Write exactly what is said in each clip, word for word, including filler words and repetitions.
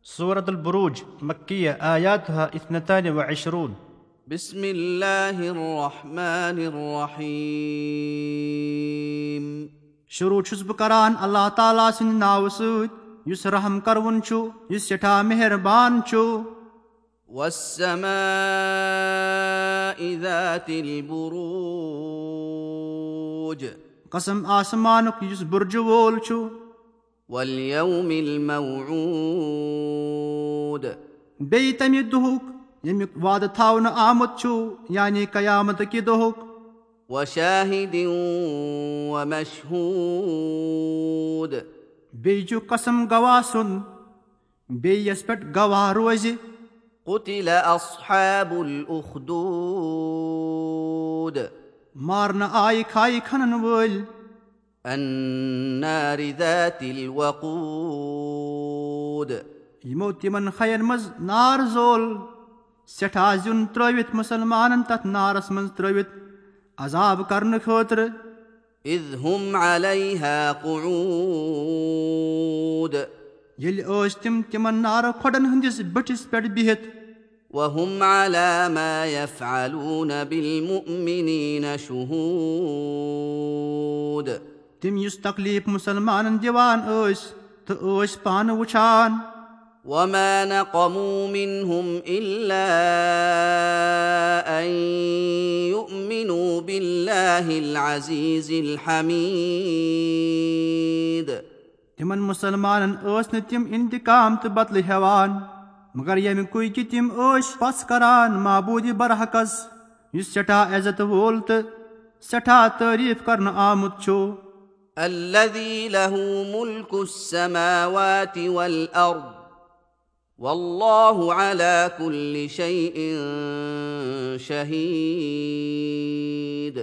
سورة البروج، مكية، آياتها اثنتان وعشرون. بسم الله الرحمن الرحيم. شروع چھُس بہٕ کران اللہ تعالیٰ سٕنٛدِ ناوٕ سۭتۍ، یُس رحم کرون چھُ، یُس سٮ۪ٹھاہ مہربان چھُ۔ والسماء ذات البروج. قسم آسمانُک یُس بُرجہِ وول چھُ۔ واليوم الموعود. بیٚیہِ تَمہِ دۄہُک ییٚمیُک وعدٕ تھاونہٕ آمُت چھُ، یعنی قیامت کہِ دۄہُک۔ وشاهد ومشهود. بیٚیہِ چھُ قسم گواہ سُنٛد، بیٚیہِ یَس پٮ۪ٹھ گواہ روزِ۔ قتل أصحاب الأخدود. مارنہٕ آیہِ کھایہِ کھنن وٲلۍ۔ النار ذات الوقود. یِمو تِمن خین منٛز نار زول، سٮ۪ٹھاہ زیُن ترٲوِتھ، مُسلمانن تتھ نارس منٛز ترٲوِتھ عذاب کرنہٕ خٲطرٕ۔ إذ هم عليها قعود. ییٚلہِ ٲسۍ تِم تِمن نارٕ کھۄڈن ہٕنٛدِس بٔٹھِس پٮ۪ٹھ بِہِتھ۔ وهم على ما يفعلون بالمؤمنين شهود. تِم یُس تکلیف مُسلمانن دِوان ٲسۍ تہٕ ٲسۍ پانہٕ وٕچھان۔ وما نقموا منهم إلا أن يؤمنوا بالله العزيز الحميد. تِمن مُسلمانن ٲسۍ نہٕ تِم انتقام تہٕ بدلہٕ ہٮ۪وان، مگر ییٚمہِ کُے کہِ تِم ٲسۍ پژھ کران معبوٗدِ برحقس، یُس سٮ۪ٹھاہ عزت وول تہٕ سٮ۪ٹھاہ تعریف کرنہٕ آمُت چھُ۔ الذي له ملك السماوات والأرض والله على كل شيء شهيد.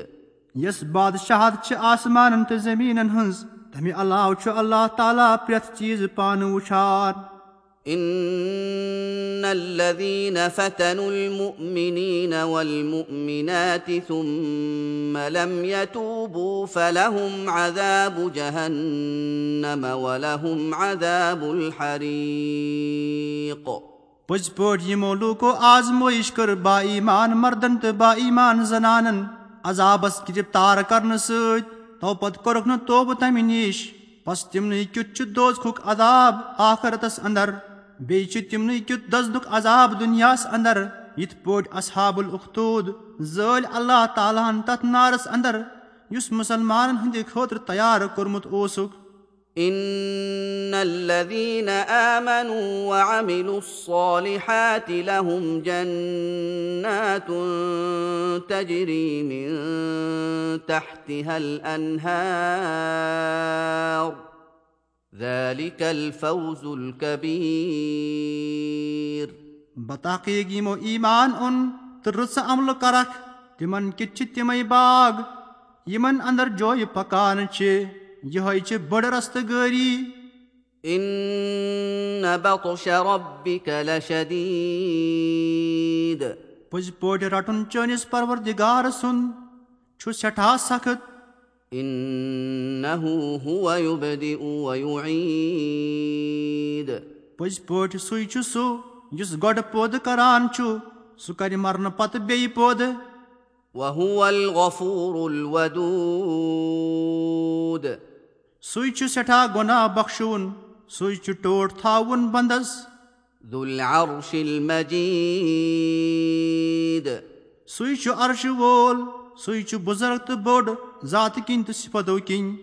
یس بادشاہت چھِ آسمانن تہٕ زٔمیٖنن ہٕنٛز، تمہِ علاوٕ چھُ اللہ تعالیٰ پرٛٮ۪تھ چیٖز پانہٕ وٕچھان۔ إن الذين فتنوا المؤمنين والمؤمنات ثم لم يتوبوا فلهم عذاب جهنم ولهم عذاب الحريق. پٔزۍ پٲٹھۍ یِمو لوٗکو آزمٲیش کٔر با ایمان مردن تہٕ با ایمان زنانن عذابس گرفتار کرنہٕ سۭتۍ، تو پتہٕ کوٚرُکھ نہٕ توبہٕ تمہِ نِش، پس تِمنٕے کیُتھ چھُ دوزخُک عذاب آخرتس اندر، بیٚیہِ چھُ تِمنٕے کیُتھ دزنُک عذاب دُنیاہس اندر، یِتھ پٲٹھۍ اصحاب الاخدود زٲلۍ اللہ تعالیٰ ہن تتھ نارس اندر، یُس مُسلمانن ہٕنٛدِ خٲطرٕ تیار کوٚرمُت اوسُکھ۔ إن الذين آمنوا وعملوا الصالحات لهم جنات تجري من تحتها الأنهار ذلك الفوز الكبير. بتحقیق یِمو ایمان اوٚن تہٕ رٕژٕ عملہٕ کرکھ، تِمن کِتھ چھِ تِمے باغ، یِمن اندر جویہِ پکان چھِ، یِہوٚے چھِ بٔڑ رستہٕ گٲری۔ إن بطش ربك لشديد. پٔزۍ پٲٹھۍ رٹُن چٲنِس پروردگار سُنٛد چھُ سٮ۪ٹھاہ سخت۔ إنه هو يبدئ ويعيد. پٔزۍ پٲٹھۍ سُے چھُ سُہ یُس گۄڈٕ پٲدٕ کران چھُ، سُہ کرِ مرنہٕ پتہٕ بیٚیہِ پٲدٕ۔ وهو الغفور الودود. سُے چھُ سٮ۪ٹھاہ گۄناہ بخشوُن، سُے چھُ ٹوٹھ تھاوُن بندس۔ ذو العرش المجيد. سُے چھُ عرشہٕ وول، سُے چھُ بُزرگ تہٕ بوٚڑ، ذاتہٕ کِنۍ تہٕ صفتو کِنۍ۔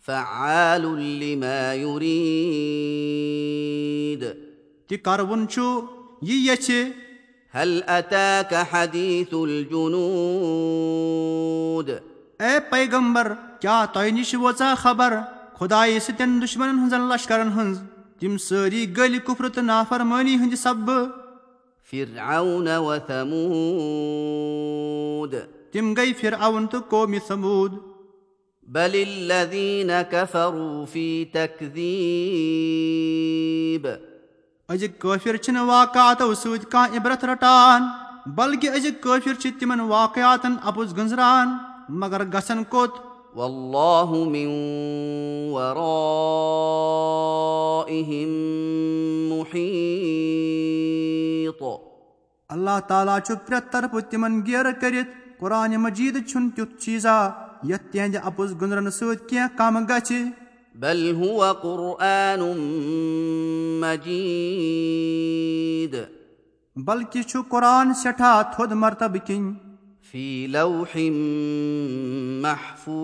فعال لما يريد. تہِ کرون چھُ یہِ یژھِ۔ هل أتاك حديث الجنود. اے پیغمبر، کیٛاہ تۄہہِ نِش وٲژاہ خبر خۄدایہِ سٕتٮ۪ن دُشمنن ہٕنٛزن لشکرن ہٕنٛز؟ تِم سٲری گٔلۍ کُفرٕ تہٕ نافرمٲنی ہٕنٛدِ سببہٕ۔ فرعون وثمود. تِم گٔے فرعون تہٕ قومِ ثمود۔ بل الذين كفروا في تكذيب. أزِکۍ کٲفِر چھِنہٕ واقعاتو سۭتۍ کانٛہہ عبرت رٹان، بلکہِ أزِکۍ کٲفِر چھِ تِمن واقعاتن اپُز گٔنزران، مگر گژھن کوٚت؟ والله من ورائهم محيط. اللہ تعالیٰ چھُ پرٛٮ۪تھ طرفہٕ تِمن گیرٕ کٔرِتھ۔ قرآن مجیٖد چھُنہٕ تیُتھ چیٖزا یتھ تِہنٛدِ اپُز گُنٛزرنہٕ سۭتۍ کینٛہہ کم گژھِ۔ بل هو قرآن مجيد بلکہِ چھُ قرآن سٮ۪ٹھاہ تھوٚد مرتبہٕ کِنۍ۔ في لوح محفوظ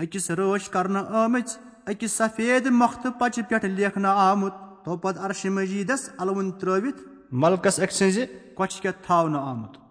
أکِس رٲچھ کرنہٕ آمٕژ أکِس سفید مۄختہٕ پچہِ پٮ۪ٹھ لیکھنہٕ آمُت، توپتہٕ عرشِ مجیٖدس الوُن ترٲوِتھ ملکس أکۍ سٕنٛزِ کۄچھِ کٮ۪تھ تھاونہٕ آمُت۔